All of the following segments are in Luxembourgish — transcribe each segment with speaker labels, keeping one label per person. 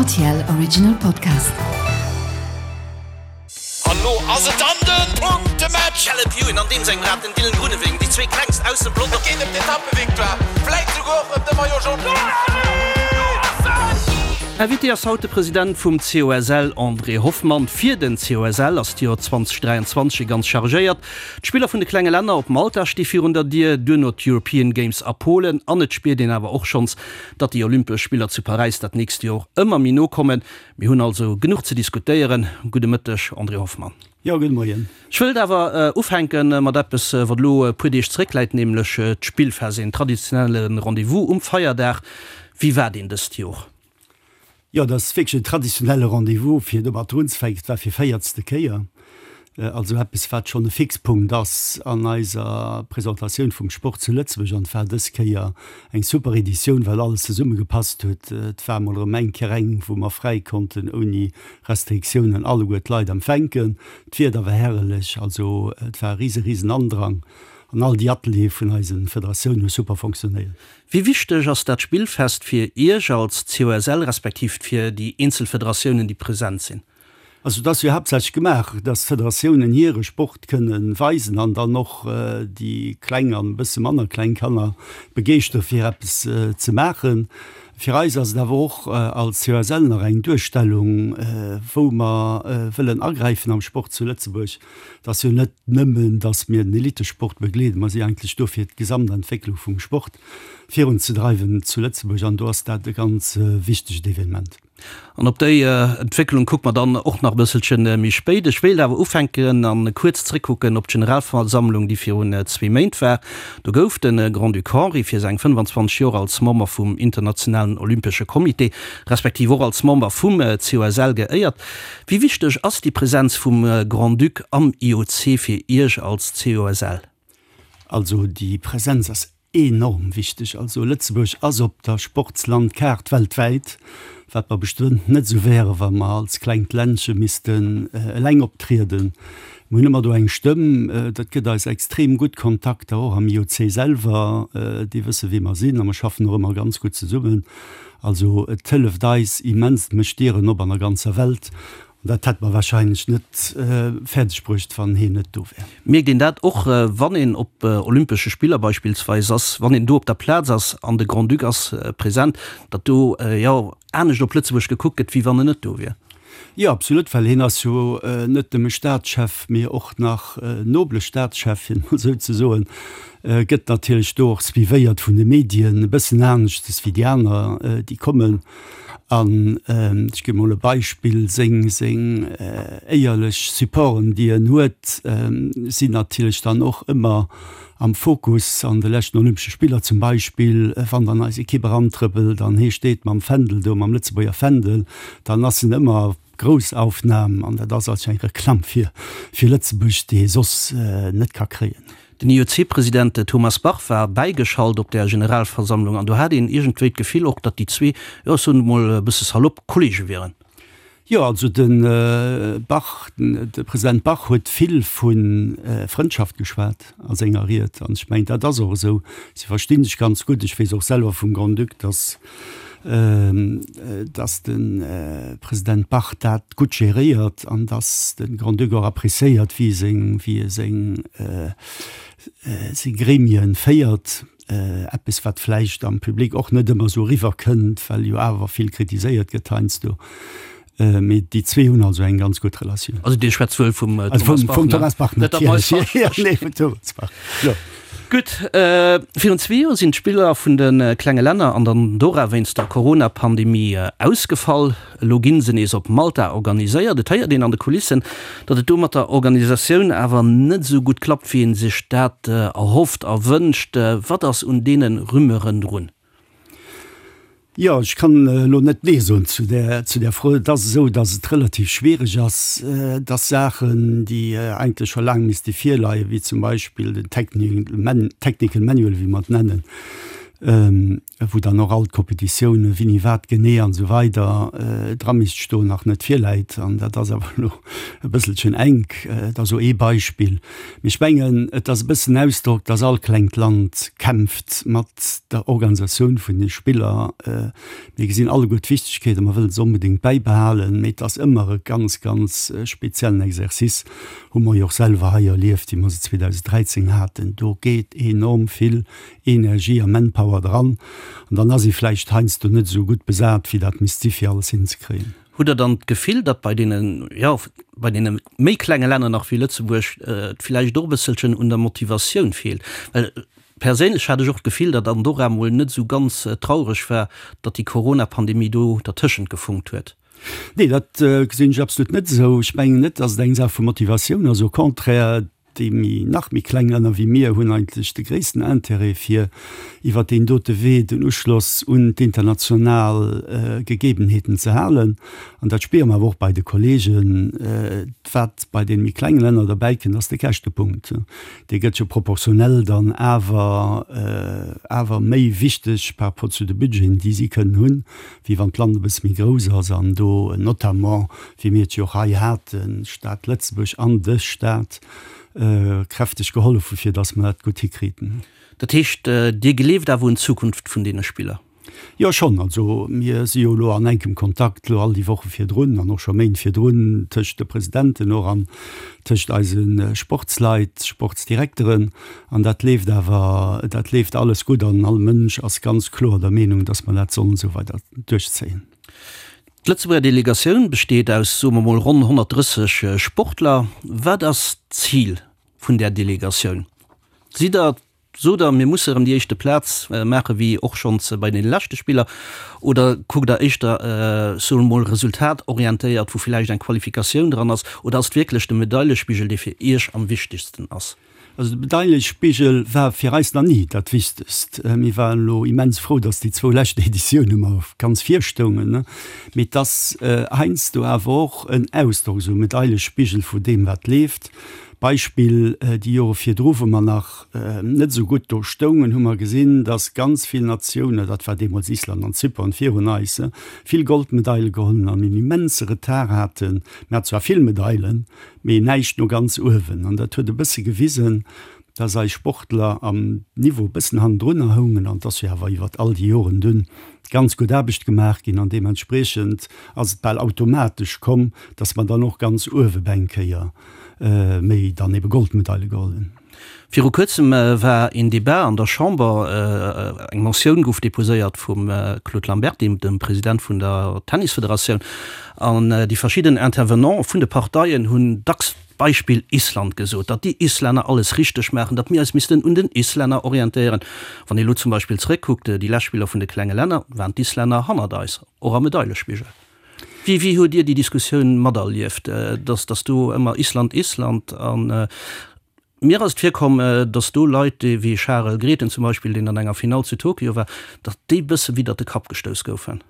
Speaker 1: RTL Original Podcast.
Speaker 2: An lo ass et dann den Punktematch!
Speaker 3: Caleb Ewan an deem sengem Rad, den Dylan Groenewegen, déi zwee klengst aus dem Pelotong.
Speaker 2: Et geet ëm d'Etappevictoire, vläit souguer och ëm de Maillot Jaune.
Speaker 4: Invité ass haut de President vum COSL André Hoffmann. Fir den COSL ass d'Joer 2023 e ganz chargéiert. D'Spiller vun de klenge Länner op Malta sti virun der Dier, duerno d'European Games a Polen an et spiert een awer och schonns, datt déi Olympesch Spiller zu Paräis dat nächst Jor ëmmer méi no kommen. Mir hunn also genuch ze diskutéieren. Gudde Mëtteg, André Hoffmann.
Speaker 5: Jo, gudde Moien.
Speaker 4: Ech wëllt awer ufänke mat eppes, wat elo e puer Deeg zeréckläit, nämlech d'Spillfest, een traditionelle Rendez-vous um Feierdag. Wéi war deen dëst Jor?
Speaker 5: Jo, dat ass wierklech en traditionelle Rendez-vous, fir domat unzefänken. Et war fir véiertste Kéier, also eppes, wat schonn e Fixpunkt ass an eiser Presentatioun vum Sport zu Lëtzebuerg. An et war dës Kéier eng super Editioun, well alles zesummegepasst huet. Et war emol erëm eng Kéier eng, wou mer fräi konnten ouni Restriktiounen alleguer d'Leit empfänken. D'Wieder war herrlech, also et war e rise, risen Andrang an all déi Ateliere vun eise Federatiounen hu super fonctionnéiert.
Speaker 4: Wéi wichteg ass dat Spillfest fir Iech als COSL respektiv fir déi eenzel Federatiounen, déi present sinn?
Speaker 5: Also et ass jo haaptsächlech gemaach, dass d'Federatiounen hire Sport kënne weisen an dann och déi kleng an e bësse manner kleng Kanner begeeschtere fir eppes ze maachen. Fir eis ass et awer och als COSL nach eng Duerstellung, wou mer wëllen agräifen am Sport zu Lëtzebuerg. Et ass jo net nëmmen, datt mir den Elitesport begleeden, mer si eigentlech do fir d'Gesamtentwécklung vum Sport virunzedreiwen zu Lëtzebuerg an do ass dat e ganz wichtegt Evenement.
Speaker 4: An op déi Entwécklung kucke mer dann och nach e bësselche méi spéit. Ech wéilt awer ufänken an kuerz zréckkucken op d'Generalversammlung, déi virun zwee Méint war. Do gouf de Grand-Duc Henri fir seng 25 Joer als Member vum Internationalen Olympesche Comité, respektiv och als Member vum COSL geéiert. Wéi wichteg ass déi Präsenz vum Grand-Duc am IOC fir Iech als COSL?
Speaker 5: Also déi Präsenz ass enorm wichteg. Also Lëtzebuerg ass op der Sportslandkaart weltwäit, wat mer bestëmmt net esou wäre wa mer als klengt Ländche missten eleng optrieden. Mir hunn ëmmer do eng Stëmm, dat gëtt eis extrem gutt Kontakter och am IOC selwer, déi wësse wie mer sinn a mer schaffen och ëmmer ganz gutt zesummen. Also et hëlleft eis immens, et mécht Dieren op an der ganzer Welt. An dat hätt mer wahrscheinlech net fäerdeg bruecht, wann heen net do wär.
Speaker 4: Mierkt een dat och, wann een op Olympesche Spiller beispillsweis ass, wann een do op der Plaz ass an de Grand-Duc ass present, datt do, jo, anescht op Lëtzebuerg gekuckt gëtt, wéi wann en net do wier?
Speaker 5: Jo, absolut, well hien ass jo net nëmme Staatschef, mee och nach nobele Staatschef, fir et mol esou ze soen, gëtt natierlech do och suivéiert vun de Medien, e bëssen aneschtes wéi déi aner, déi kommen. An ech gi mol e Beispill, seng seng éierlech Supporten, déi en huet, sinn natierlech dann och ëmmer am Fokus. An de leschten Olympesche Spiller zum Beispill, wann dann eis Ekipp erantrëppelt an hee steet mam Fändel do, mam Lëtzebuerger Fändel, dann ass en ëmmer Groussaufnam an dat ass also eng Reklamm fir fir Lëtzebuerg, déi ee soss net ka kréien.
Speaker 4: Den IOC-President Thomas Bach war bäigeschalt op där Generalversammlung an do hat een iergendwéi d'Gefill och, datt déi zwee, jo ech soen et mol e bësse salopp, Kollege wieren.
Speaker 5: Jo, also de Bach, de President Bach huet vill vu Frëndschaft geschwat a senger Ried. An ech mengen, dat ass och esou. Si versti sech ganz gutt. Ech weess och selwer vum Grand-Duc, datt, datt de President Bach dat gutt geréiert an datt de Grand-Duc och appréciéiert, wéi e seng, wéi e seng, seng Gremien féiert. Eppes, wat vläicht am Public och net ëmmer esou eriwwer kënnt, well jo awer vill kritiséiert gëtt heiansdo. Mee déi zwee hunn also eng ganz gutt Relatioun.
Speaker 4: Also Dir schwätzt wuel vum Thomas Bach, ne? Vum
Speaker 5: Thomas Bach natierlech. Jo, nee, vum Thomas Bach, jo.
Speaker 4: Gutt, virun zwee Joer sinn d'Spiller vun de klenge Länner an der Andorra wéinst der Corona-Pandemie ausgefall. Elo ginn se nees op Malta organiséiert. Et héiert een an de Kulissen, datt et do mat der Organisatioun awer net esou gutt klappt, wéi ee sech dat erhofft a wënscht. Wat ass un deene Rumeuren drun?
Speaker 5: Jo, ech kann elo net Nee soen zu där, zu där Fro. Et ass esou, datt et relativ schwiereg ass, datt Saachen, déi eigentlech scho laang misste virleien, wéi zum Beispill den Technical Manual, wéi mer et nennen,. Wou dann och all d'Kompetitiounen, wéini wat genee an esou weider dra misst stoen, nach net virläit. An dat ass awer elo e bësselchen enk. Dat ass elo ee Beispill. Mee ech mengen, et ass e bëssen Ausdrock, dass all klengt Land kämpft mat der Organisatioun vun de Spiller. Mir gesinn alleguer d'Wichtegkeet a mer wëllen se onbedéngt bäibehalen. Mee et ass ëmmer e ganz, ganz speziellen Exercice. Hu mer jo och selwer hei erlieft, wéi mer se 2013 haten. Do geet enorm vill Energie a Manpower dran an dann ass ee vläicht heiansdo net esou gutt besat, wéi dat misst si fir alles hinzekréien.
Speaker 4: Hutt Der dann d'Gefill, datt bei deene, jo, bei deene méi klenge Länner nach wéi Lëtzebuerg et vläicht och e bësselchen un der Motivatioun feelt? Well perséinlech hat ech och d'Gefill, datt Andorra mol net esou ganz traureg war, datt déi Corona-Pandemie do dertëschent gefunkt huet.
Speaker 5: Nee, dat gesinn ech absolut net esou. Ech mengen net, datt et eng Saach vu Motivatioun ass, au contraire, Déi méi, nach méi kleng Länner wéi mir hunn eigentlech de gréissten Intérêt, fir iwwert deen dote Wee den Uschloss un d'international Gegebenheeten ze halen. An dat spiere mer awer och bei de Kollegen. Wat bei deene méi klenge Länner derbäi kënnt, ass de Käschtepunkt. Dee gëtt jo proportionell dann awer, awer méi wichteg par rapport zu de Budgeten, déi si kënnen hunn, wéi wann d'Land e bësse méi grouss ass an do notamment wéi mir et jo och hei haten, d'Stad Lëtzebuerg an de Stat kräfteg gehollef hu fir datt mer dat gutt hikriiten.
Speaker 4: Dat heescht, Dir gleeft awer un d'Zukunft vun deene Spiller?
Speaker 5: Jo, schonn. Also mir si jo elo an enkem Kontakt elo all déi Woche virdrun an och scho Méint virdrun tëscht de Presidenten och an tëscht eise Sportsleit, Sportsdirekteren. An dat leeft awer, dat leeft alles gutt an all Mënsch ass ganz kloer der Meenung, datt mer dat sollen esou weider duerchzéien.
Speaker 4: D'Lëtzebuerger Delegatioun besteet aus, soe mer mol, ronn 130 Sportler. Wat ass d'Zil vun där Delegatioun? Sidd Der, sot Der, mir musse erëm déi éischte Plaz maache wéi och schonns bei deene leschte Spiller, oder kuckt Der éischter, soe mer mol, resultatorientéiert, wou villäicht eng Qualifikatioun dran ass, oder ass et wierklech de Medailespigel, dee fir Iech am wichtegsten ass?
Speaker 5: Also de Medailespigel war fir eis nach ni dat Wichtegst. Mir waren elo immens frou, datt déi zwou lescht Editioune mer ganz vir stoungen. Mee et ass heiansdo awer och en Ausdrock, esou e Medailespigel, vu deem wat leeft. Beispill, déi Jore virdru, wou mer nach net esou gutt do stoungen, hu mer gesinn, datt ganz vill Natiounen, dat war deemools Island an Zypern virun eis, vill Goldmedaile geholl hunn an en immense Retard haten. Mir haten zwar vill Medailen, mee näischt no ganz uewen. An dat huet e bësse gewisen, dass eis Sportler am Niveau e bëssen hannendrunner houngen an dass jo awer iwwert all déi Joren dunn ganz gutt Aarbecht gemaach ginn an deementspriechend ass et bal automatesch komm, dass mer dann och ganz uewe bei eng Kéier méi dann ebe Goldmedaile geholl hunn.
Speaker 4: Viru kuerzem war een Debat an der Chamber, eng Motioun gouf deposéiert vum Claude Lamberty, dem President vun der Tennisfederatioun, an déi verschidden Intervenante vun de Parteien hunn dacks d'Beispill Island gesot, datt déi Islänner alles richteg maachen, datt mir eis missten un den Islänner orientéieren. Wann ee elo zum Beispill zeréckkuckt, déi lescht Spiller vun de klenge Länner, waren d'Islänner hannert eis, och am Medailespigel. Wéi wéi hutt Dir déi Diskussioun materlieft, datt datt do ëmmer Island, Island an mir ass et virkomm, datt do Leit wéi Charel Grethen zum Beispill, deen an enger Finall zu Tokio war, datt déi bësse widdert de Kapp gestouss goufen?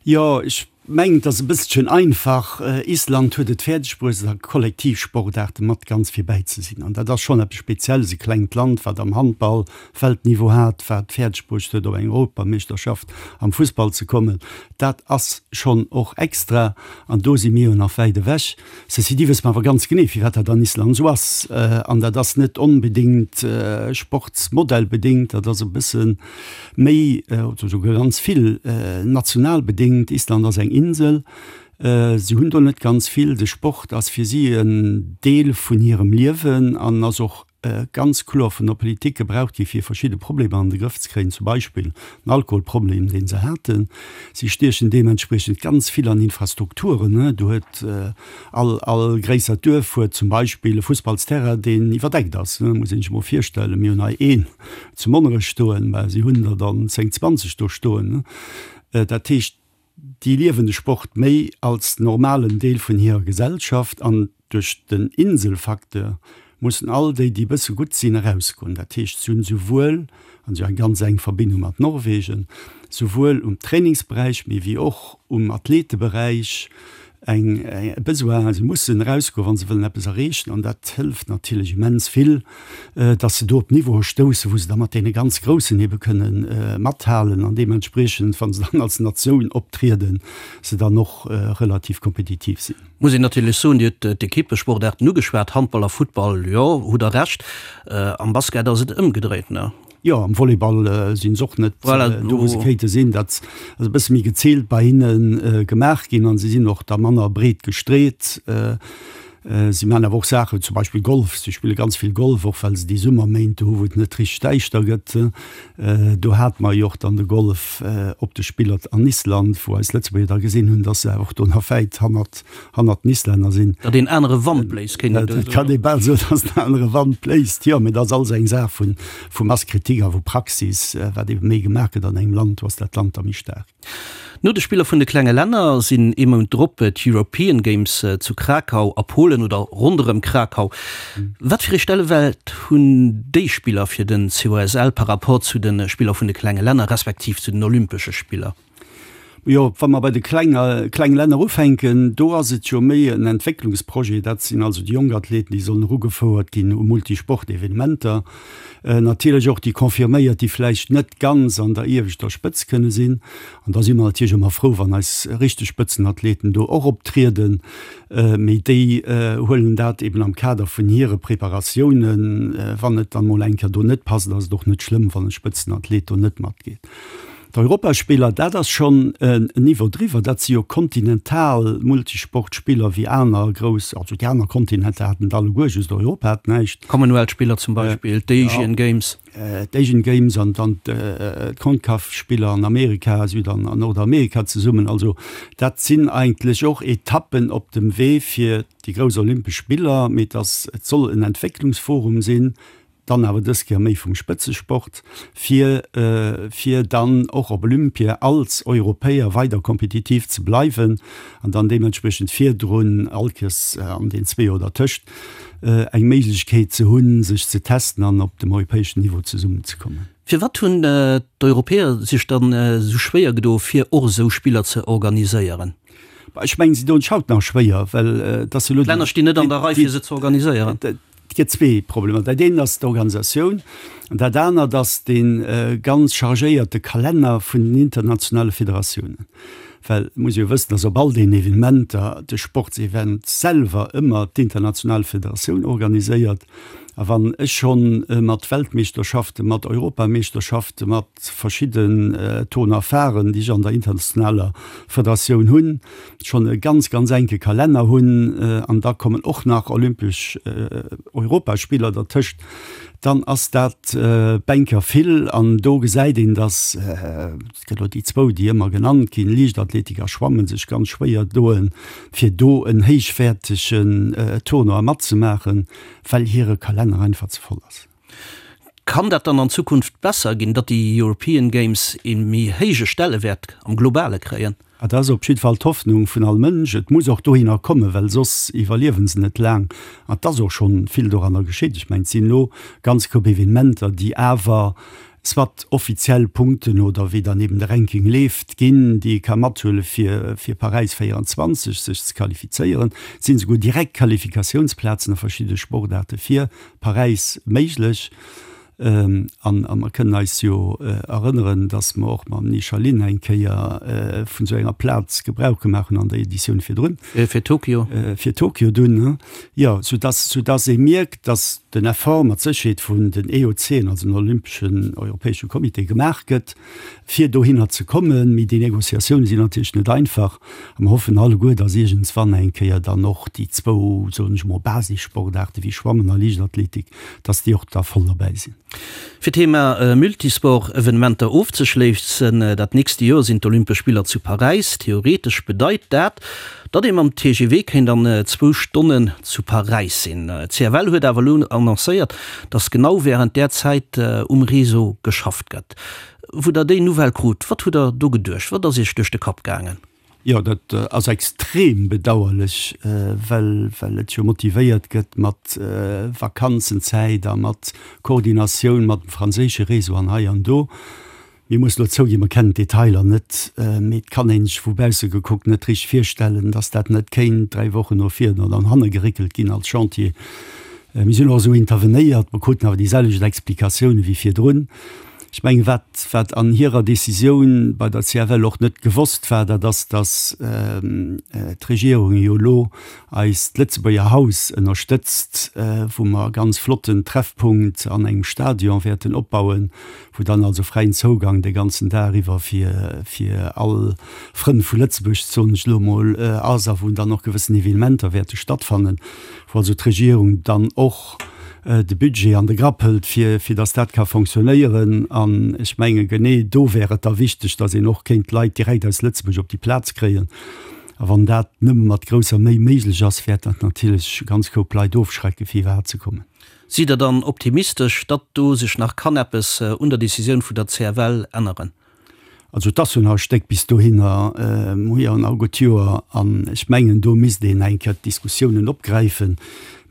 Speaker 5: Jo, ech mengen, et ass e bësselchen einfach. Island huet et fäerdeg bruecht, a Kollektivsportaarte mat ganz virbäi ze sinn. An dat ass schonn eppes Spezielles, e klengt Land, wat am Handball Weltniveau hat, wat fäerdeg bruecht huet, op eng Europameeschterschaft am Fussball ze kommen. Dat ass schonn och extra an do si mir jo nach wäit ewech. Ceci dit wësse mer awer ganz genee, firwat dat an Island esou ass. An dat ass net onbedéngt sportsmodellbedéngt, dat ass e bësse méi oder esouguer ganz vill national bedéngt. Island ass eng Insel, si hunn do net ganz vill. De Sport ass fir si en Deel vun hirem Liewen an ass och ganz kloer vun der Politik gebraucht gi fir verschidde Problemer an de Grëff ze kréien, zum Beispill den Alkoholproblem, dee se haten. Si stiechen deementspriechend ganz vill an Infrastrukturen. Do huet all, all gréissert Duerf huet zum Beispill e Fussballsterrain, deen iwwerdeckt ass. Muss een sech emol virstellen, mir hunn hei een zu Monnerech stoen, mä si hunn der dann 10, 20 do stoen. Dat heescht, Déi liewen de Sport méi als normalen Deel vun hirer Gesellschaft an duerch den Inselfacteur mussen all déi, déi e bësse gutt sinn, erausgoen. Dat heescht, si hunn souwuel, an si hu eng ganz enk Verbindung mat Norwegen, souwuel um Trainingsberäich, mee wéi och um Athleteberäich. Eng, e Besoin, se mussen erausgoen, wa se wëllen eppes erreechen. An dat hëlleft natierlech immens vill, datt se do op Niveaue stoussen, wou se da mat deene ganz Groussen ebe kënne mathalen an deementspriechend, wa se dann als Natioun optrieden, se dann och relativ kompetitiv sinn.
Speaker 4: Muss een natierlech soen, Dir hutt d'Equippesportaarten ugeschwat, Handball a Futtball, jo, hutt Der Recht. Am Basket ass et ëmgedréit, ne?
Speaker 5: Jo, am Volleyball sinn se och net do, wou se kéinte sinn. Dat ass e bësse méi geziilt bei hinne gemaach ginn an se sinn och da manner breet gestreet. Si maachen awer och Saachen, zum Beispill Golf. Si spille ganz vill Golf, och well se déi Summerméint do hu wou et net richteg däischter gëtt. Do hate mer jo och dann de Golf op de Spiller an Island, wou eis Lëtzebuerger da gesinn hunn, datt se awer och do nach wäit hannert hannert den Islänner sinn.
Speaker 4: Datt een anere Wand bléist, kéint een do
Speaker 5: soen. Et kann ee bal soen, datt en anere Wand bléist, jo, mee dat ass alles eng Saach vu Mass kritique a vu Praxis. Wat ebe méi gemaach gëtt an engem Land, do ass dat Land da méi staark.
Speaker 4: No de Spiller vun de klenge Länner sinn ee Mount drop d'European Games zu Krakau a Polen oder ronderëm Krakau. Wat fir ee Stellewäert hunn déi Spiller fir den COSL par rapport zu de Spiller vun de klenge Länner respektiv zu den Olympesche Spiller?
Speaker 5: Jo, wa mer bei de kleng kleng Länner ufänken, do ass et jo méi en Entwécklungsprojet. Dat sinn also déi jonk Athleten, déi sollen erugefouert ginn u Multisport-Evenementer. Natierlech och déi Confirméiert, déi vläicht net ganz an der ieweschter Spëtz kënne sinn. An da si mer natierlech ëmmer frou, wann eis richteg Spëtzenathleten do och optrieden. Mee déi huelen dat eben am Kader vun hire Preparatiounen. Wann et dann mol eng Kéier do net passt, ass et och net schlëmm, wann e Spëtzenathlet do net matgeet. D'Europaspiller, dat ass schonn en Niveau driwwer. Dat si jo kontinental Multisportspiller wéi aner grouss, also déi aner Kontinenter haten et alleguer, just Europa hat näischt.
Speaker 4: D'Commonwealth-Spiller zum Beispill, d'Asian Games.
Speaker 5: D'Asian Games an dann d'Concaf-Spiller an Amerika, Süd an Nordamerika zesummen. Also dat sinn eigentlech och Etappen op dem Wee fir déi grouss Olympesch Spiller. Mee et ass, et soll en Entwécklungsforum sinn, dann awer dës Kéier méi vum Spëtzesport, fir fir dann och op Olympia als Europäer weider kompetitiv ze bleiwen an dann deementspriechend virdrun all Kéiers an den zwee Joer dertëscht eng Méiglechkeet ze hunn, sech ze testen an op dem europäeschen Niveau zesummenzekommen.
Speaker 4: Firwat hunn d'Europäer sech dann esou schwéier gedo fir och esou Spiller ze organiséieren?
Speaker 5: Ech mengen, si doen sech haut nach schwéier, well et ass jo elo.
Speaker 4: D'Länner stinn net an der Rei fir se ze organiséieren.
Speaker 5: Et gëtt zwee Problemer. Dat eent ass d'Organisatioun an dat anert ass dee ganz chargéierte Kalenner vun den internationale Federatiounen. Well et muss ee jo wëssen, dass op all deenen Evenementer de Sportsevent selwer ëmmer d'international Federatioun organiséiert. A wann ech schonn mat Weltmeeschterschaften, mat Europameeschterschaften, mat verschidden Tournoipharen, déi ech an der internationaler Federatioun hunn, schonn e ganz, ganz enke Kalenner hunn an da kommen och nach olympesch Europaspiller dertëscht, dann ass dat bänker vill. An do gesäit een, datt, et gëtt elo déi zwou, déi ëmmer genannt ginn, Liichtathletik a Schwammen, sech ganz schwéier doen, fir do en héichwäertegen Tournoi matzemaachen, well hire Kalenner einfach ze voll ass.
Speaker 4: Kann dat dann an Zukunft besser ginn, datt déi European Games ee méi héije Stellewäert am Globale kréien?
Speaker 5: Dat ass op jidde Fall d'Hoffnung vun all Mënsch. Et muss och dohinner kommen, well soss iwwerliewe se net laang. An et ass och schonn vill doranner geschitt. Ech mengen, et sinn elo ganz Koup Evenementer, déi awer soit offiziell Punkten oder wéi dann eben de Ranking leeft, ginn, déi ee ka mathuele fir fir Paräis 24 sech ze qualifizéieren. Et sinn esouguer direkt Qualifikatiounsplazen a verschidde Sportaarte fir Paräis méiglech. An a mer kënnen eis jo erënneren, datt mer och mam Nisha Lin eng Kéier vun esou enger Plaz Gebrauch gemaach hunn an der Editioun virdrun.
Speaker 4: Fir Tokio.
Speaker 5: Fir Tokio dunn, jo. Soudatt, soudatt ee mierkt, datt den Effort mat Sécherheet vun den EOCen, also den Olympeschen Europäesche Comité, gemaach gëtt, fir dohinner ze kommen. Mee déi Négociatioune sinn natierlech net einfach. A mer hoffen alleguer, datt iergendswann eng Kéier dann och déi zwou, soen ech emol, Basissportaarte wéi Schwammen a Liichtathletik, datt déi och da voll derbäi sinn.
Speaker 4: Fir d'Thema Multisport-Evenementer ofzeschléissen, dat nächste Joer sinn d'Olympesch Spiller zu Paräis. Theoretesch bedeit dat, datt ee mam TGV kéint an zwou Stonnen zu Paräis sinn. D'CFL huet awer elo annoncéiert, datt genau wärend där Zäit um Réseau geschafft gëtt. Wou der déi Nouvelle krut, wat hutt der do geduecht? Wat ass Iech duerch de Kapp gaangen?
Speaker 5: Jo, dat ass extrem bedauerlech, well well et jo motivéiert gëtt mat Vakanzenzäit a mat Koordinatioun mat dem franséische Réseau an hei an do. Mir mussen elo zouginn, mer kennen d'Detailer net, mee et kann ee sech vu bausse gekuckt net richteg virstellen, dass dat net kéint 3 Wochen no vir oder no hanne geréckelt ginn als Chantier. Mir sinn och esou intervenéiert, mer kruten awer déi selwecht Explikatioune wéi virdrun. Ech mengen, wat, wat an hirer Décisioun bei der CFL och net gewosst war, dat ass, dass d'Regierung jo elo eis d'Lëtzebuerger Haus ënnerstëtzt, wou mer e ganz flotten Treffpunkt an engem Stadion wäerten opbauen, wou dann also fräien Zougang de ganzen Dag iwwer fir fir all Frënn vu Lëtzebuerg, soen ech elo emol, ass a wou dann och gewëssen Evenementer wäerte stattfannen, wou also d'Regierung dann och de Budget an de Grapp hëlt, fir fir datt dat ka fonctionnéieren. An ech menge genee do wär et da wichteg, datt een och kéint Leit direkt aus Lëtzebuerg op déi Plaz kréien. A wann dat nëmme mat grousser Méi méiglech ass, wäert dat natierlech e ganz Koup Leit ofschrecken, fir iwwerhaapt ze kommen.
Speaker 4: Sidd Der dann optimistesch, datt do sech nach kann eppes un der Decisioun vun der CFL änneren?
Speaker 5: Also et ass jo nach e Stéck bis dohinner, mir hu jo nach e gutt Joer an ech mengen, do misst een eng Kéier d'Diskussiounen opgräifen.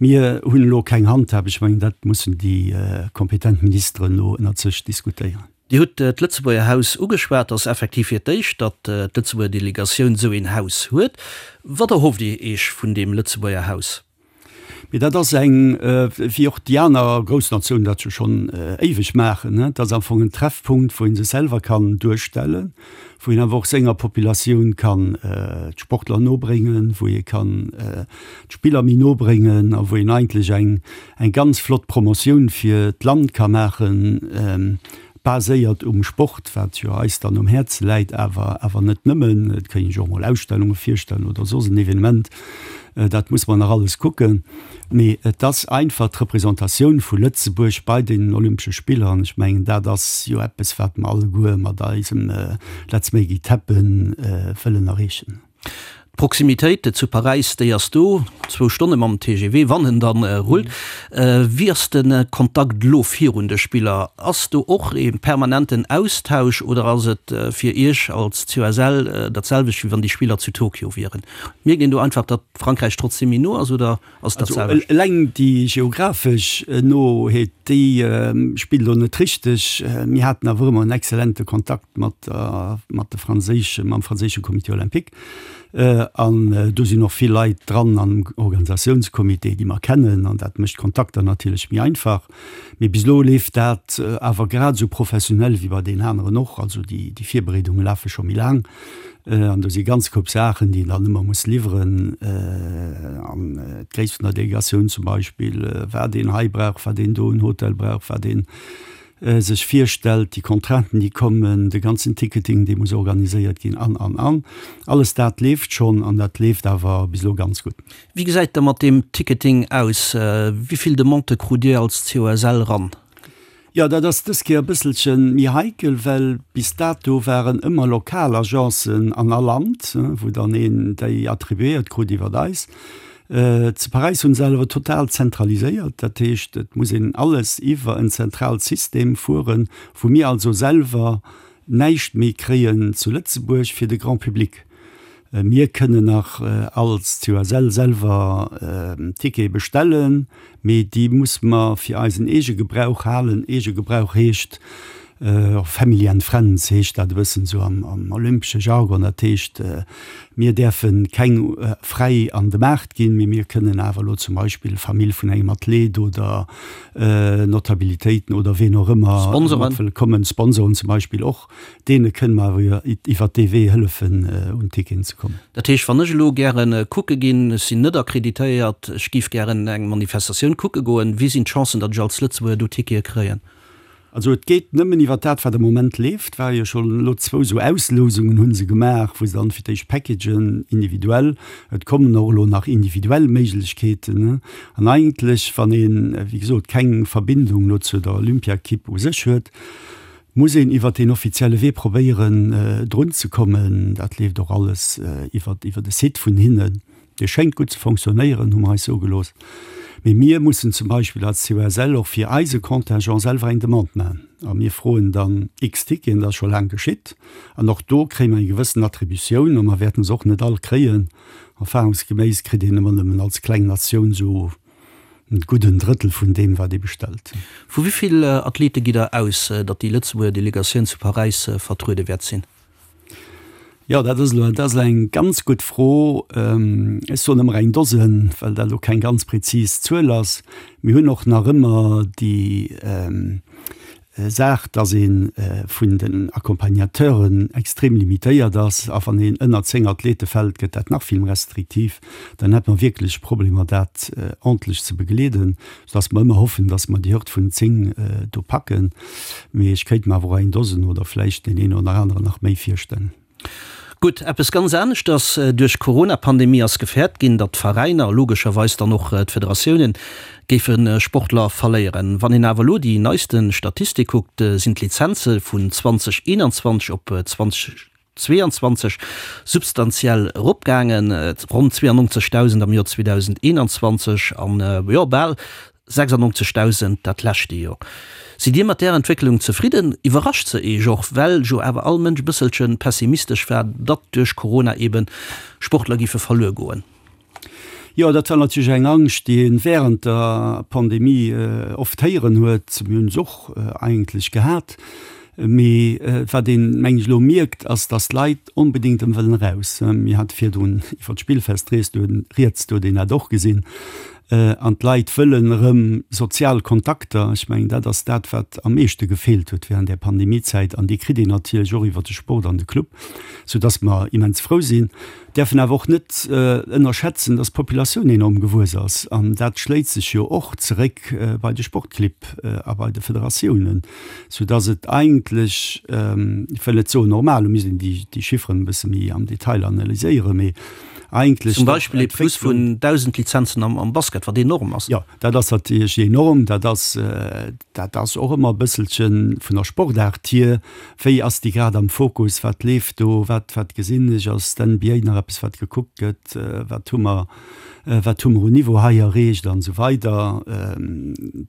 Speaker 5: Mir hunn elo keng Handhab, ech mengen, dat mussen déi kompetent Ministeren elo ënnert sech diskutéieren.
Speaker 4: Dir hutt d'Lëtzebuerger Haus ugeschwat. Et ass effektiv fir d'éischt, datt d'Lëtzebuerger Delegatioun esou een Haus huet. Wat erhofft Dir Iech vun deem Lëtzebuerger Haus?
Speaker 5: Mee dat ass eng, wéi och déi aner grouss Natiounen dat jo schonn éiweg maachen, dat ass am Fong en Treffpunkt, wou ee sech selwer kann duerstellen, wou een awer och senger Populatioun kann d'Sportler nobréngen, wou ee kann d'Spiller méi nobréngen a wou een eigentlech eng, eng ganz flott Promotioun fir d'Land ka maachen. Baséiert um Sport, wat jo eis dann um Häerze läit, awer awer net nëmmen. Et kéint een sech och mol Ausstellunge virstellen oder soss en Evenement. Dat muss mer nach alles kucken. Mee et ass einfach d'Representatioun vu Lëtzebuerg bei den Olympesche Spiller an ech mengen, dat ass jo eppes, wat mer alleguer mat eisem Let's make it happen wëllen erreechen.
Speaker 4: D'Proximitéit zu Paräis, déi ass do, zwou Stonne mam TGV, wann en dann rullt. Wéi ass de Kontakt elo virun de Spiller? Ass do och ee permanenten Austausch oder ass et fir Iech als COSL dat selwecht, wéi wann déi Spiller zu Tokio wieren? Mierkt een do einfach, datt Frankräich trotzdem méi no ass oder ass et dat
Speaker 5: selwecht? Also eleng déi geographesch Noheet, déi spillt elo net richteg. Mir haten awer ëmmer en exzellente Kontakt mat mat de franséische, mam franséische Comité olympique. An do sinn och vill Leit dran am Organisatiounscomité, déi mer kennen, an dat mécht d'Kontakter natierlech méi einfach. Mee bis elo leeft dat awer grad esou professionell wéi bei deenen aneren och. Also déi déi Virbereedunge lafe scho méi laang an do si ganz Koup Saachen, déi een dann ëmmer muss liwweren. An d'Gréisst vun der Delegatioun zum Beispill, wat een hei brauch, wat een do en Hotel brauch, wat een sech virstellt, déi Contrainten, déi kommen, de ganzen Ticketing, dee muss organiséiert ginn an, an, an. Alles dat leeft schonn an dat leeft awer bis elo ganz gutt.
Speaker 4: Wéi gesäit da mat deem Ticketing aus? Wéi vill Demandë krut Dir als COSL ran?
Speaker 5: Jo, dat ass dës Kéier e bësselche méi heikel, well bis dato waren ëmmer lokal Agencen an all Land, wou dann een déi attribuéiert krut iwwert eis. Zu Paräis hunn se awer total zentraliséiert, dat heescht et muss een alles iwwer en zentraalt System fueren, wou mir also selwer näischt méi kréien zu Lëtzebuerg fir de Grand public. Mir kënnen nach als COSL selwer Tickete bestellen, mee déi muss mer fir eisen eege Gebrauch halen. Eege Gebrauch heescht, Family and Friends heescht dat e bëssen esou am olympesche Jargon. Dat heescht, mir däerfe keng fräi an de Maart ginn, mee mir kënnen awer elo zum Beispill Famill vun engem Athlet oder Notabilitéiten oder ween och ëmmer mat wëll kommen, Sponsoren zum Beispill och, deene kënne mer awer iwwert dee Wee hëllefen, un Ticketen ze kommen.
Speaker 4: Dat heescht, wann ech elo gäre kucke ginn, ech sinn net akkreditéiert, ech géif gären eng Manifestatioun kucke goen, wéi sinn d'Chancen, datt ech als Lëtzebuerger do Tickete kréien?
Speaker 5: Also et geet nëmmen iwwer dat, wat am Moment leeft. War jo schonn elo zwou esou Auslousungen hu se gemaach, wou se dann fir d'éischt Packagen individuell, et kommen och elo nach individuell Méiglechkeeten. An eigentlech, wann een, wéi gesot, keng Verbindung elo zu der Olympiakipp u sech huet, muss een iwwer deen offizielle Wee probéieren drunzekommen. Dat leeft och alles iwwer iwwer de Site vun hinnen. Dee schéngt gutt ze fonctionnéieren, hu mer eis soe gelooss. Mee mir mussen zum Beispill als COSL och fir eise Contingent selwer eng Demande maachen. A mir froen dann x Ticketen, dat ass scho laang geschitt. An och do kréie mer eng gewëssen Attributioun a mer wäerten se och net all kréien. Erfahrungsgeméiss kritt een ëmmer nëmmen als kleng Natioun esou. gudden Drëttel vun deem, wat ee bestellt.
Speaker 4: Vu wéi vill Athlete gitt Der aus, datt déi Lëtzebuerger Delegatioun zu Paräis vertruede wäert sinn?
Speaker 5: Jo, dat ass elo, dat ass elo eng ganz gutt Fro. Ech soen ëmmer eng Dosen, well dat elo keng ganz prezis Zuel ass. Mir hunn och nach ëmmer déi Saach, dass ee vun den Accompagnateuren extrem limitéiert ass. A wann een ënner 10 Athlete fält, gëtt dat nach vill méi restriktiv. Dann hätt mer wierklech Problemer, dat ordentlech ze begleeden, soudass mer ëmmer hoffen, dass mer déi Hürd vun 10 do packen. Mee ech kéint mer awer och eng Dosen oder vläicht deen een oder aneren nach méi virstellen.
Speaker 4: Gutt, eppes ganz aneschters, Duerch d'Corona-Pandemie ass gefäert ginn, datt d'Veräiner, a logescherweis dann och d'Federatiounen, géife Sportler verléieren. Wann een awer elo déi neiste Statistik kuckt, sinn d'Lizenze vun 2021 op 2022 substantiell eropgaangen, ronn 92.000 am Joer 2021 an, jo, bal 96.000 dat leschte Joer. Sidd Dir mat där Entwécklung zefridden? Iwwerrascht se Iech och, well jo awer all Mënsch e bësselche pessimistesch war, datt duerch Corona eebe Sportler géife verluer goen?
Speaker 5: Jo, dat war natierlech eng Angscht, déi ee wärend der Pandemie oft héieren huet. Mir hunn se och eigentlech gehat. Mee wat een, meng ech, elo mierkt, ass, datt d'Leit onbedéngt erëm wëllen eraus. Mir hate virdrun iwwer d'Spillfest rieds, do huet een dat och gesinn. An d'Leit wëllen erëm sozial Kontakter. Ech mengen, dat ass dat, wat am meeschte gefeelt huet während där Pandemiezäit. An déi kritt een natierlech och iwwer de Sport an de Club, soudass mer immens frou sinn. Däerfen awer och net ënnerschätzen, dass d'Populatioun enorm gewuess ass. An dat schléit sech jo och zeréck bei de Sportclibb a bei de Federatiounen, soudass et eigentlech, ech wëll net soen normal, do misst een déi Chifferen e bësse méi am Detail analyséieren, mee
Speaker 4: eigentlech Zum Beispill ee Plus vun 1.000 Lizenzen am Basket, wat enorm ass.
Speaker 5: Jo, dat ass natierlech enorm. Dat ass, dat ass och ëmmer e bësselche vun der Sportaart hier, Wéi ass déi grad am Fokus, wat leeft do, wat, wat gesinn ech, ass d'NBA nach eppes, wat gekuckt gëtt, wat hu mer, wat hu mer un Niveau hei erreecht an esou weider.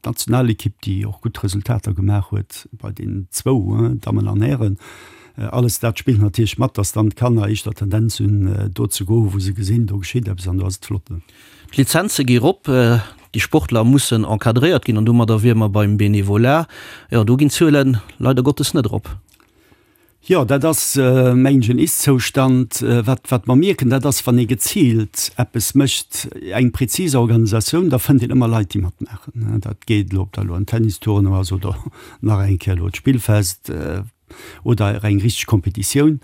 Speaker 5: D'Nationalekipp, déi och gutt Resultater gemaach huet bei den zwou, Dammen an Hären. Alles dat spillt natierlech mat, dass dann d'Kanner éischter Tendenz hunn, do ze goen, wou se gesinn, do geschitt eppes an do ass et flott.
Speaker 4: D'Lizenze gi rop, déi Sportler mussen encadréiert ginn an domadder wiere mer beim Benevolat. Jo, do ginn d'Zuele leider Gottes net erop.
Speaker 5: Jo, dat ass, mengen ech, en Ist-Zoustand. Wat, wat mer mierken, dat ass, wann ee geziilt eppes mécht, eng präzis Organisatioun, da fënnt een ëmmer Leit, déi matmaachen. Dat geet elo, ob dat elo en Tennistournoi ass oder nach eng Kéier elo d'Spillfest, oder eng richteg Kompetitioun,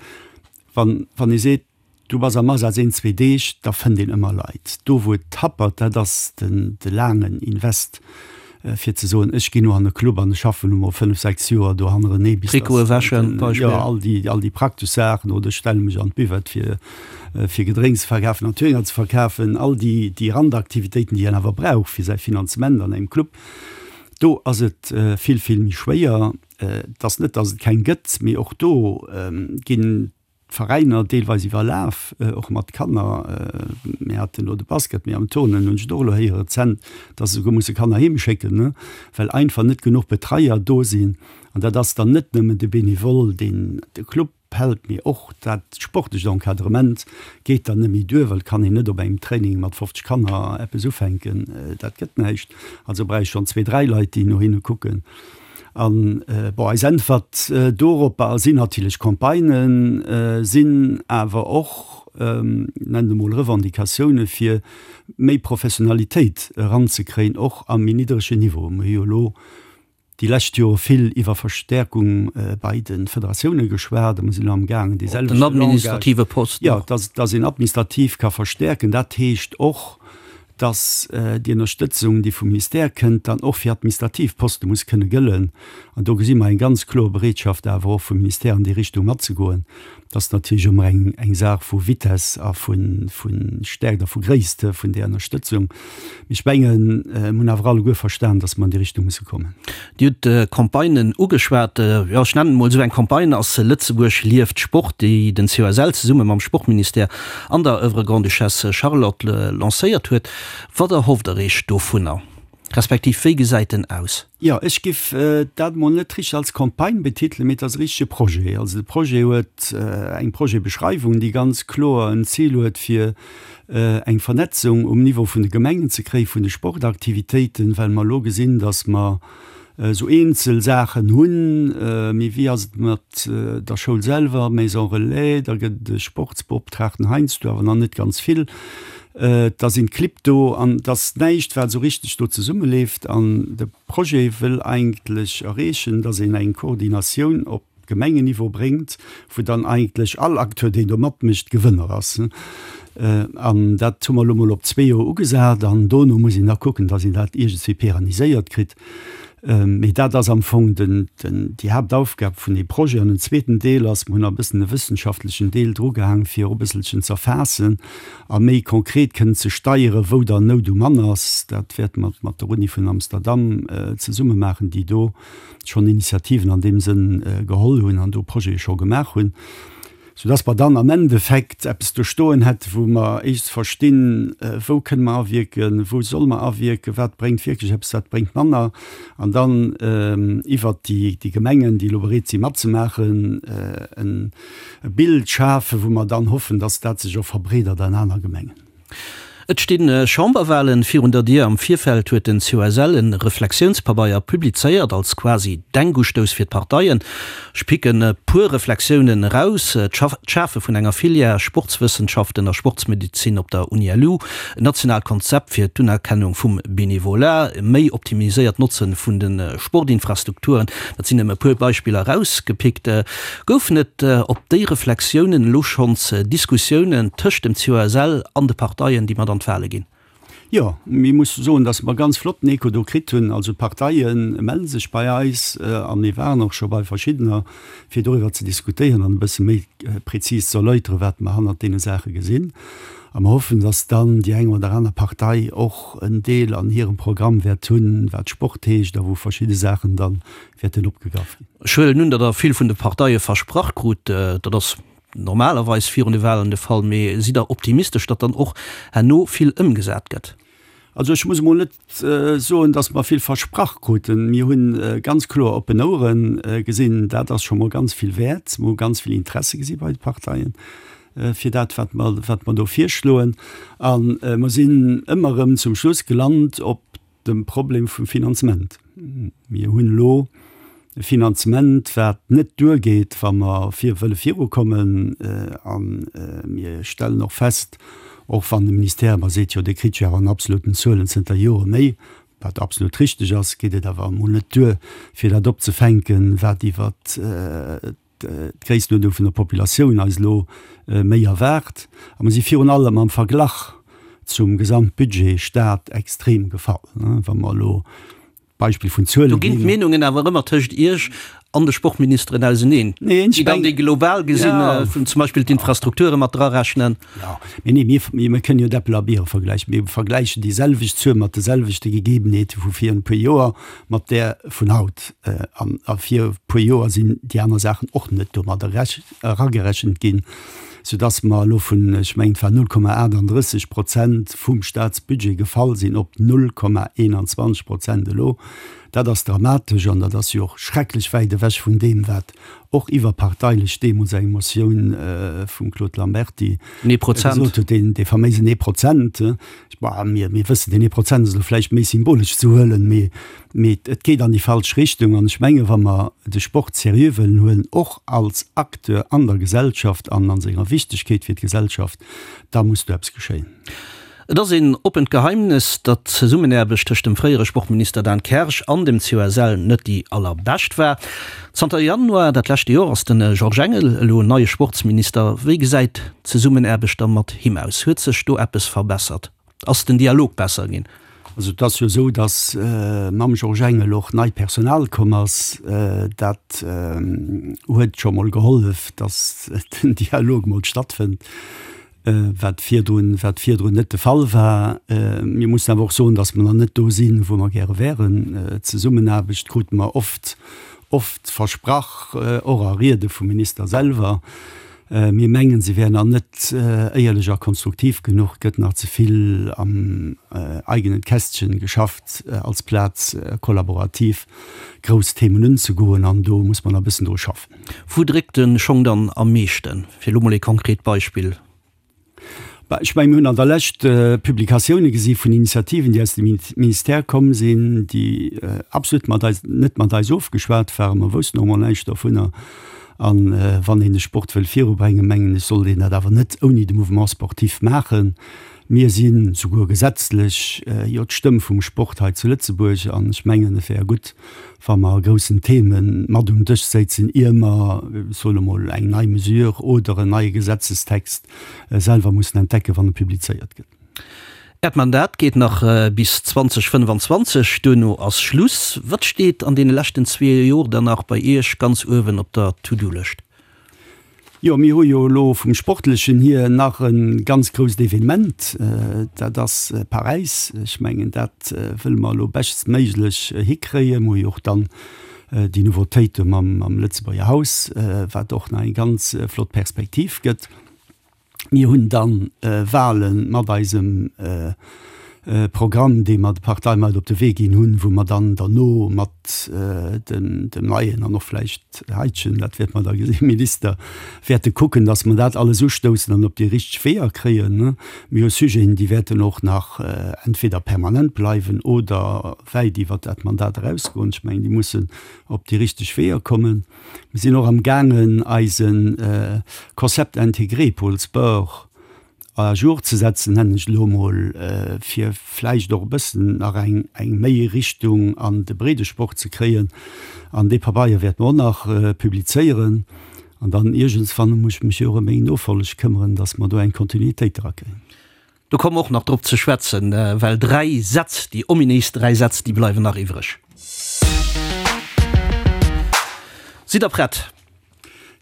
Speaker 5: wann wann ee seet, du bass am Asaz een, zwee Deeg, da fënnt een ëmmer Leit. Do wou et happert, dat ass den de laangen Invest, fir ze soen, ech ginn elo an e Club an ech schaffen elo mol fënnf, sechs Joer do hannerenee
Speaker 4: bis dass Trikote wäschen,
Speaker 5: Beispill. Jo, all déi all déi praktesch Saachen, oder ech stelle mech an d'Buvette fir fir Gedrénks ze verkafen an Töner ze verkafen, all déi déi Randaktivitéiten, déi een awer brauch fir säi Finanzement an engem Club, do ass et vill, vill méi schwéier. Et ass net, datt et keng gëtt, mee och do ginn d'Veräiner deelweis iwwerlaf, och mat Kanner. Mir haten elo de Basket, mee am Turnen hunn ech et och elo héiere rezent, datt se souguer musse Kanner heem schécken, well einfach net genuch Betreier do sinn. An dat ass dann net nëmmen de Benevole, deen de Club hält, mee och dat sportlecht Encadrement geet dann net méi duer, well et kann een net op engem Training mat 50 Kanner eppes ufänken, dat gëtt näischt. Also brauch ech schonn zwee, dräi Leit, déi no hinne kucken. An, bon, eis Äntwert doropper sinn natierlech Campagnen, sinn awer och, nennen et emol Revendicatioune fir méi Professionalitéit eranzekréien, och am méi niddregen Niveau. Mir hu jo elo déi lescht Jore vill iwwer Verstäerkung bei de Federatioune geschwat a mir sinn elo amgaangen dee selwechte
Speaker 4: Langage, Den administrative Posten
Speaker 5: och. Jo, dass, dass een administrativ ka verstäerken. Dat heescht och, dass déi Ënnerstëtzung, déi vum Ministère kënnt, dann och fir administrativ Poste muss kënne gëllen. An do gesi mer eng ganz kloer Bereetschaft awer och vum Ministère an déi Richtung matzegoen. Dat ass natierlech ëmmer eng, eng Saach vu Vitesse a vu, vu Stärkt a vu Gréisst vun där Ënnerstëtzung. Mee ech mengen, mir hunn awer alleguer verstan, dass mer an déi Richtung musse kommen.
Speaker 4: Dir hutt d'Campagnen ugeschwat. Jo, ech nennen emol esou eng Campagne ass Lëtzebuerg lieft Sport, déi den COSL zesumme mam Sportministère an der Oeuvre Grande-Duchesse Charlotte lancéiert huet. Wat erhofft Der Iech dovunner? Respektiv wéi gesäit en aus?
Speaker 5: Jo, ech giff dat mol net richteg als Campagne betitelen, mee et ass e richtege Projet. Also de Projet huet eng Projetbeschreiwung, déi ganz kloer en Zil huet, fir eng Vernetzung um Niveau vun de Gemengen ze kréien, vun de Sportaktivitéiten, well mer elo gesinn, datt mer esou eenzel Saachen hunn, mee wéi ass et mat der Schoul selwer, Maison Relais, da gëtt et e Sportsbeoptraagten heiansdo, awer nach net ganz vill. Da sinn d'Clibb do an et ass näischt, wat esou richteg do zesummeleeft. An de Projet wëll eigentlech erreechen, datt een eng Koordinatioun op Gemengenniveau bréngt, wou dann eigentlech all Acteur, deen do matmécht, Gewënner ass. An dat hu mer elo mol op zwee Joer ugesat an dono muss een da kucken, datt een dat iergendswéi pérenniséiert kritt. Mee dat ass am Fong den, den, déi Haaptaufgab vun deem Projet. An den zweeten Deel ass, mer hunn nach e bëssen e wëssenschaftlechen Deel drugehaang, fir och e bësselchen z'erfaassen a méi konkret kënnen ze steieren, wou dann Nout um Mann ass. Dat wäerte mer mat der Uni vun Amsterdam zesumme maachen, déi do schonn Initiativen an deem Sënn geholl hunn an do Projete scho gemaach hunn, soudass mer dann am Endeffekt eppes do stoen hätten, wou mer éischts verstinn, wou kënne mer awierken, wou solle mer awierken, wat bréngt wierklech eppes, wat bréngt manner, an dann iwwert déi Gemengen, déi elo bereet si matzemaachen, e Bild schafen, wou mer dann hoffen, dass dat sech och verbreedert an aner Gemengen.
Speaker 4: Et sti Chamberwalen virun der Dier. Am Virfeld huet den COSL en Reflexiounspabeier publizéiert, als quasi Denkustouss fir d'Parteien. Ech picken e puer Reflexiounen eraus, d'Schafe vun enger Filière Sportswëssenschaften a Sportsmedezin op der UniLu, en nationaalt Konzept fir d'Unerkennung vum Benevolat, e méi optimiséiert Notze vun de Sportinfrastrukturen. Dat sinn nëmme e puer Beispiller erausgepickt. Goufen et op déi Reflexiounen elo schonns Diskussiounen tëscht dem COSL an de Parteien, déi mat an d'Wale ginn?
Speaker 5: Jo, mir musse soen, datt mer ganz flotten Echo do kritt hunn. Also d'Parteie melle sech bei eis a mir waren och scho bei verschiddener, fir doriwwer ze diskutéieren an e bësse méi prezis ze erläuteren, wat mer hannert deene Saache gesinn. A mer hoffen, datt dann déi eng oder aner Partei och en Deel an hirem Programm wäert hunn, wat Sport heescht a wou verschidde Saachen da wäerten opgegraff ginn.
Speaker 4: Ech huelen un, datt Der vill vun de Parteie versprach krut. Dat ass normalerweis virun de Wahlen de Fall. Mee sidd Der optimistesch, datt dann och herno vill ëmgesat gëtt?
Speaker 5: Also ech muss emol net soen, datt mer vill versprach kruten. Mir hu ganz kloer oppen Ouere gesinn. Dat ass scho mol ganz vill wäert. Mir hu ganz vill Interesse gesi bei de Parteien fir dat, wat mer, wat mer do virschloen. A mer sinn ëmmer erëm zum Schluss gelant op dem Problem vum Finanzement. Mir hunn elo e Finanzement, wat net duergeet, wa mer vir wëlle virukommen. A mir stellen och fest, och wann de Ministère ëmmer seet, jo, Dir kritt jo awer an absoluten Zuelen zënter Jore méi, wat absolut richteg ass, geet et awer emol net duer, fir dat opzefänken, wat iwwert d'Gréisstenuerdnung vun der Populatioun eis elo méi erwaart. A mer si virun allem am Verglach zum Gesamtbudget Stat extrem gefall. Wa mer elo d'Beispill vun Zuele
Speaker 4: Do ginn d'Meenungen awer ëmmer tëscht Iech an de Sportministeren auseneen, déi dann déi global gesinn, zum Beispill d'Infrastrukture mat drarechnen.
Speaker 5: Jo, mee nee, mir, mir kënnen jo d'Äppel a Biere vergläichen. Mir vergläichen déi selwecht Zuel mat de selwechte Gegebenheete vu vir e puer Joer mat där vun haut. An a vir e puer Joer sinn déi aner Saachen och net domat eragerechent ginn, soudass mer elo vun, ech mengen, et war 0,38 Prozent vum Staatsbudget gefall sinn op 0,21 Prozent elo. Dat ass dramatesch an dat ass jo och schrecklech wäit ewech vun deem, wat och iwwerparteilech deemools eng Motioun vum Claude Lamberty gesot huet, deen dee faméisen ee Prozent. Bon, mir, mir wëssen, deen ee Prozent ass elo vläicht méi symbolesch ze huelen, mee, mee et geet an déi falsch Richtung. An ech menge wa mer de Sport seriö wëllen huelen, och als Acteur an der Gesellschaft an a senger Wichtegkeet fir d'Gesellschaft, da muss do eppes geschéien.
Speaker 4: Et ass een oppent Geheimnes, datt d'Zesummenaarbecht tëscht dem fréiere Sportminister Dan Kersch an dem COSL net déi allerbescht war. Zanter Januar dat leschte Joer ass de Georges Engel elo neie Sportsminister. Wéi gesäit d'Zesummenaarbecht da mat him aus? Huet sech do eppes verbessert? Ass den Dialog besser ginn?
Speaker 5: Also et ass jo esou, datt mam Georges Engel och neit Personal komm ass. Dat huet scho mol gehollef, datt den Dialog mol stattfënnt. Wat virdrun, wat virdrun net de Fall war. Mir mussen awer och soen, datt mer nach net do sinn, wou mer gäre wären. Zesummenaarbecht krute mer oft, oft versprach, och a Riede vum Minister selwer. Mir mengen, se wär nach net éierlech a konstruktiv genuch, gëtt nach ze vill am eigenen Kästchen geschafft, als Plaz kollaborativ grouss Themen unzegoen, an do muss mer nach e bëssen dru schaffen.
Speaker 4: Wou dréckt de Schong dann am meeschten? Fir elo mol ee konkret Beispill.
Speaker 5: Bah, ech mengen, mir hunn an der Lescht Publikatioune gesi vun Initiativen, déi aus dem Ministère komm sinn, déi absolut mat eis, net mat eis ofgeschwat waren. Mer woussten och emol näischt dovunner. A wann een de Sport wëll virubréngen, mengen ech, sollt een dat awer net ouni de Mouvement sportif maachen. Mir si souguer gesetzlech jo d'Stëmm vum Sport hei zu Lëtzebuerg an ech mengen, et wär gutt, wa mer a groussen Theme mat um Dësch séizen, ier mer, ech soen emol, eng nei Mesure oder en neie Gesetzestext selwer mussen entdecken, wann e publizéiert gëtt.
Speaker 4: Äert Mandat geet nach bis 2025, duerno ass Schluss. Wat steet an deene leschten zwee Jor dann nach bei Iech ganz uewen op der To-Do-Lëscht?
Speaker 5: Jo, mir hu jo elo vum Sportlechen hier nach e ganz grousst Evenement, dat ass Paräis. Ech mengen, dat wëlle mer elo beschtstméiglech hikréien. Mir hu jo och dann déi Nouveautéite mam Lëtzebuerger Haus, wat och nach eng ganz flott Perspektiv gëtt. Mir hunn dann Wahle mat eisem Programm, dee mer de Parteie mat op de Wee ginn hunn, wou mer dann derno mat dem neien an och vläicht heitegen, dat wäerte mer da gesinn, Minister wäerte kucken, datt mer dat alles ustoussen an op déi richteg Weeër kréien. Mir hu Sujeten, déi wäerten och nach entweder permanent bleiwen oder wäit iwwert dat Mandat erausgoen. Ech mengen, déi mussen op déi richteg Weeër kommen. Mir sinn och amgaangen, eise Concept intégré Pôle Sport à jour ze setzen, nennen ech et elo emol, fir vläicht och e bëssen nach eng eng méi Richtung an de Breedesport ze kréien. An dee Pabeier wäerte mer och nach publizéieren. An dann iergendswann muss ech mech jo och ëm meng Nofolleg këmmeren, dass mer do eng Kontinuitéit erakréien.
Speaker 4: Do komme mer och nach drop ze schwätzen, well dräi Sätz, déi ominéis dräi Sätz, déi bleiwen nach iwwreg. Sidd Der prett?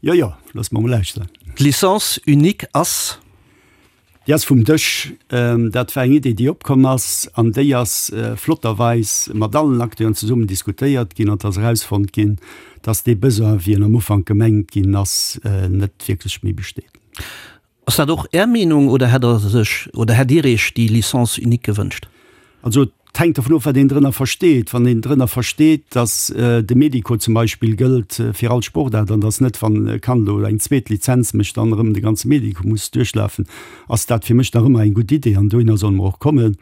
Speaker 5: Jo, jo, looss mer mol lauschteren.
Speaker 4: D'Licence unique ass?
Speaker 5: Déi ass vum Dësch. Dat war eng Idee, déi opkomm ass, an déi ass flotterweis mat allen Acteuren zesummen diskutéiert ginn an et ass erausfonnt ginn, dass dee Besoin, wéi en am Ufank gemengt ginn ass, net wierklech méi besteet.
Speaker 4: Ass dat och Är Meenung oder hätt Der sech oder hätt Dir Iech déi Licence unique gewënscht?
Speaker 5: Also et hänkt dovun of, wat een drënner versteet. Wann een drënner versteet, datt de Medico zum Beispill gëllt fir all Sportaart an datt net, wann e Kand elo eng zweet Lizenz mécht, dann erëm de ganze Medico muss duerchlafen, ass dat fir mech nach ëmmer eng gutt Idee an dohinner solle mer och kommen.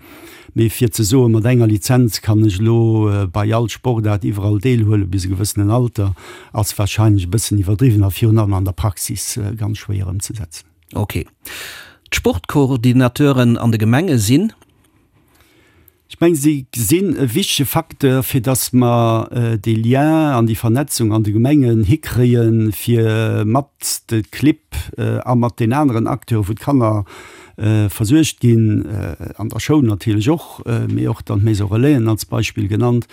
Speaker 5: Mee fir ze soen, mat enger Lizenz kann ech elo bei all Sportaart iwwerall deelhuelen bis e gewëssenen Alter, ass warscheinlech e bëssen iwwerdriwwen a virun allem an der Praxis ganz schwéier ëmzesetzen.
Speaker 4: Ok. D'Sportcoordinateuren an de Gemenge sinn?
Speaker 5: Ech mengen, si sinn e wichtege Facteur, fir datt mer dee Lien an déi Vernetzung an de Gemengen hikréien, fir mat de Clibb a mat den aneren Acteuren, wou d'Kanner versuergt ginn, an der Schoul natierlech och, mee och dann d'Maison Relaisen als Beispill genannt,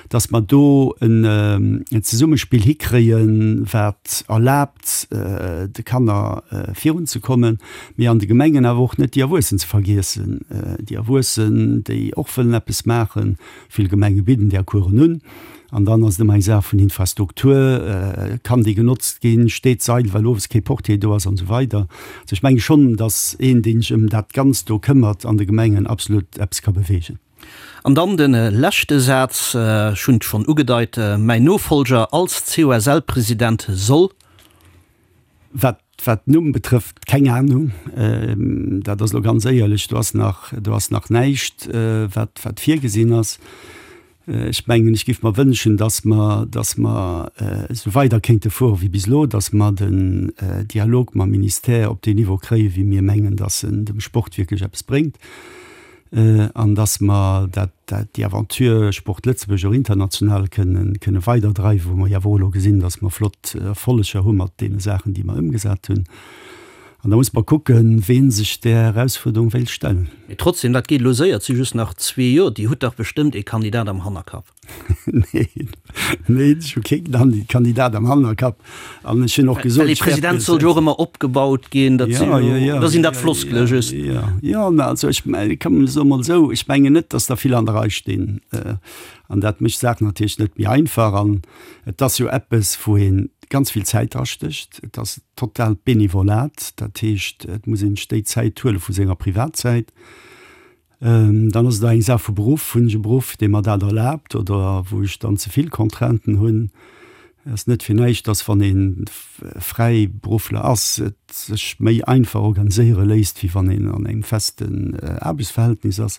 Speaker 5: dass mer do en Zesummespill hikréien, wat erlaabt, de Kanner virunzekommen, mee an de Gemengen awer och net déi Erwuessen ze vergiessen, déi Erwuessen, déi och wëllen eppes maachen. Vill Gemenge bidden där Coursen un. An dann ass et ëmmer eng Saach vun Infrastruktur, Kann déi genotzt ginn? Steet d'Seil, well owes kee Portier do ass an esou weider. Also ech menge schonn, datt een, dee sech ëm dat Ganzt do këmmert an de Gemengen, absolut eppes ka beweegen.
Speaker 4: An dann de leschte Saz, ech hunn et schonn ugedeit, Mäin Nofolger als COSL-President soll.
Speaker 5: Wat wat den Numm betrëfft, keng Ahnung. Dat ass elo ganz éierlech, do ass nach, do ass nach näischt, wat wat virgesinn ass. Ech mengen, ech géif mer wënschen, dass mer, dass mer esou weider kéinte fuere wéi bis elo, dass mer den Dialog mam Ministère op deen Niveau kréien, wéi mir mengen, dass en dem Sport wierklech eppes bréngt. An dass mer dat, dat, déi Aventure Sport Lëtzebuerg och international kënnen, kënne weiderdreiwen, wou mer jo awer och elo gesinn, dass mer flott Erfolleger hu mat deene Saachen, déi mer ëmgesat hunn. An da muss mer kucken, ween sech där Erausfuerderung wéilt stellen.
Speaker 4: Mee trotzdem, dat geet elo séier, et si just nach zwee Joer. Dir hutt dach bestëmmt ee Kandidat am Hannerkapp.
Speaker 5: Neen, neen, ech hu kee Kandidat am Hannerkapp. An ech hunn och gesot,
Speaker 4: Well ee President soll jo och ëmmer opgebaut ginn. Dat sinn jo, da sinn dat Floskele just.
Speaker 5: Jo, jo, mä also ech komm, ech soe mol esou, ech mengen net, datt der vill an der Rei stinn. An dat mécht d'Saach natierlech net méi einfach. An et ass jo eppes, wou ee. ganz vill Zäit drastécht. Et ass totaalt Benevolat, dat heescht, et muss een sech déi Zäit huele vu senger Privatzäit. Dann ass et och eng Saach vu Beruff. Hunn ech e Beruff, dee mer dat erlaabt oder wou ech dann ze vill Contrainten hunn? Et ass net fir näischt, dass wann ee Fräiberuffler ass, et sech méi einfach organiséiere léisst, wéi wann een an engem festen Aarbechtsverhältnis ass.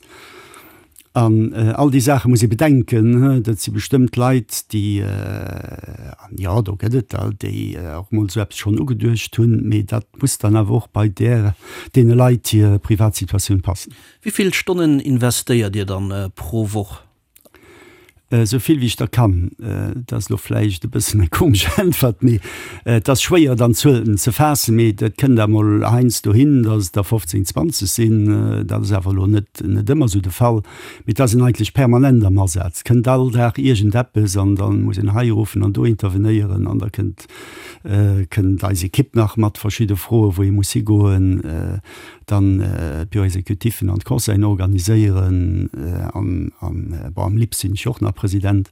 Speaker 5: An all déi Saache muss ee bedenken. Dat si bestëmmt Leit, déi, an jo, do gëtt et der, déi och mol esou eppes schonn ugeduecht hunn, mee dat muss dann awer och bei där, deene Leit hir Privatsituatioun passen.
Speaker 4: Wéi vill Stonnen investéiert Dir dann pro Woch?
Speaker 5: Esou vill wéi ech der kann. Dat ass elo vläicht e bëssen eng komesch Äntwert, mee et ass schwéier dann Zuelen ze faassen. Mee et kënnt emol heiansdo hin, datt et der 15, 20 sinn. Dat ass awer elo net net ëmmer esou de Fall. Mee et ass een eigentlech permanent am Asaz. Et kënnt all Dag iergendeppes an da muss een hei ruffen an do intervenéieren an da kënnt kënnt eis Ekipp nach mat verschidde Froen, wou ee muss higoen. Dann d'Bureau-exécutifen an d'Conseillen organiséieren an, an, bon, am LIPS sinn ech jo och nach President.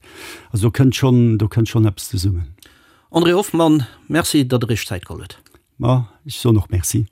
Speaker 5: Also do kënnt schonn, do kënnt schonn eppes zesummen.
Speaker 4: André Hoffmann, Merci, datt Der Iech Zäit geholl hutt.
Speaker 5: Ma ech soen och Merci.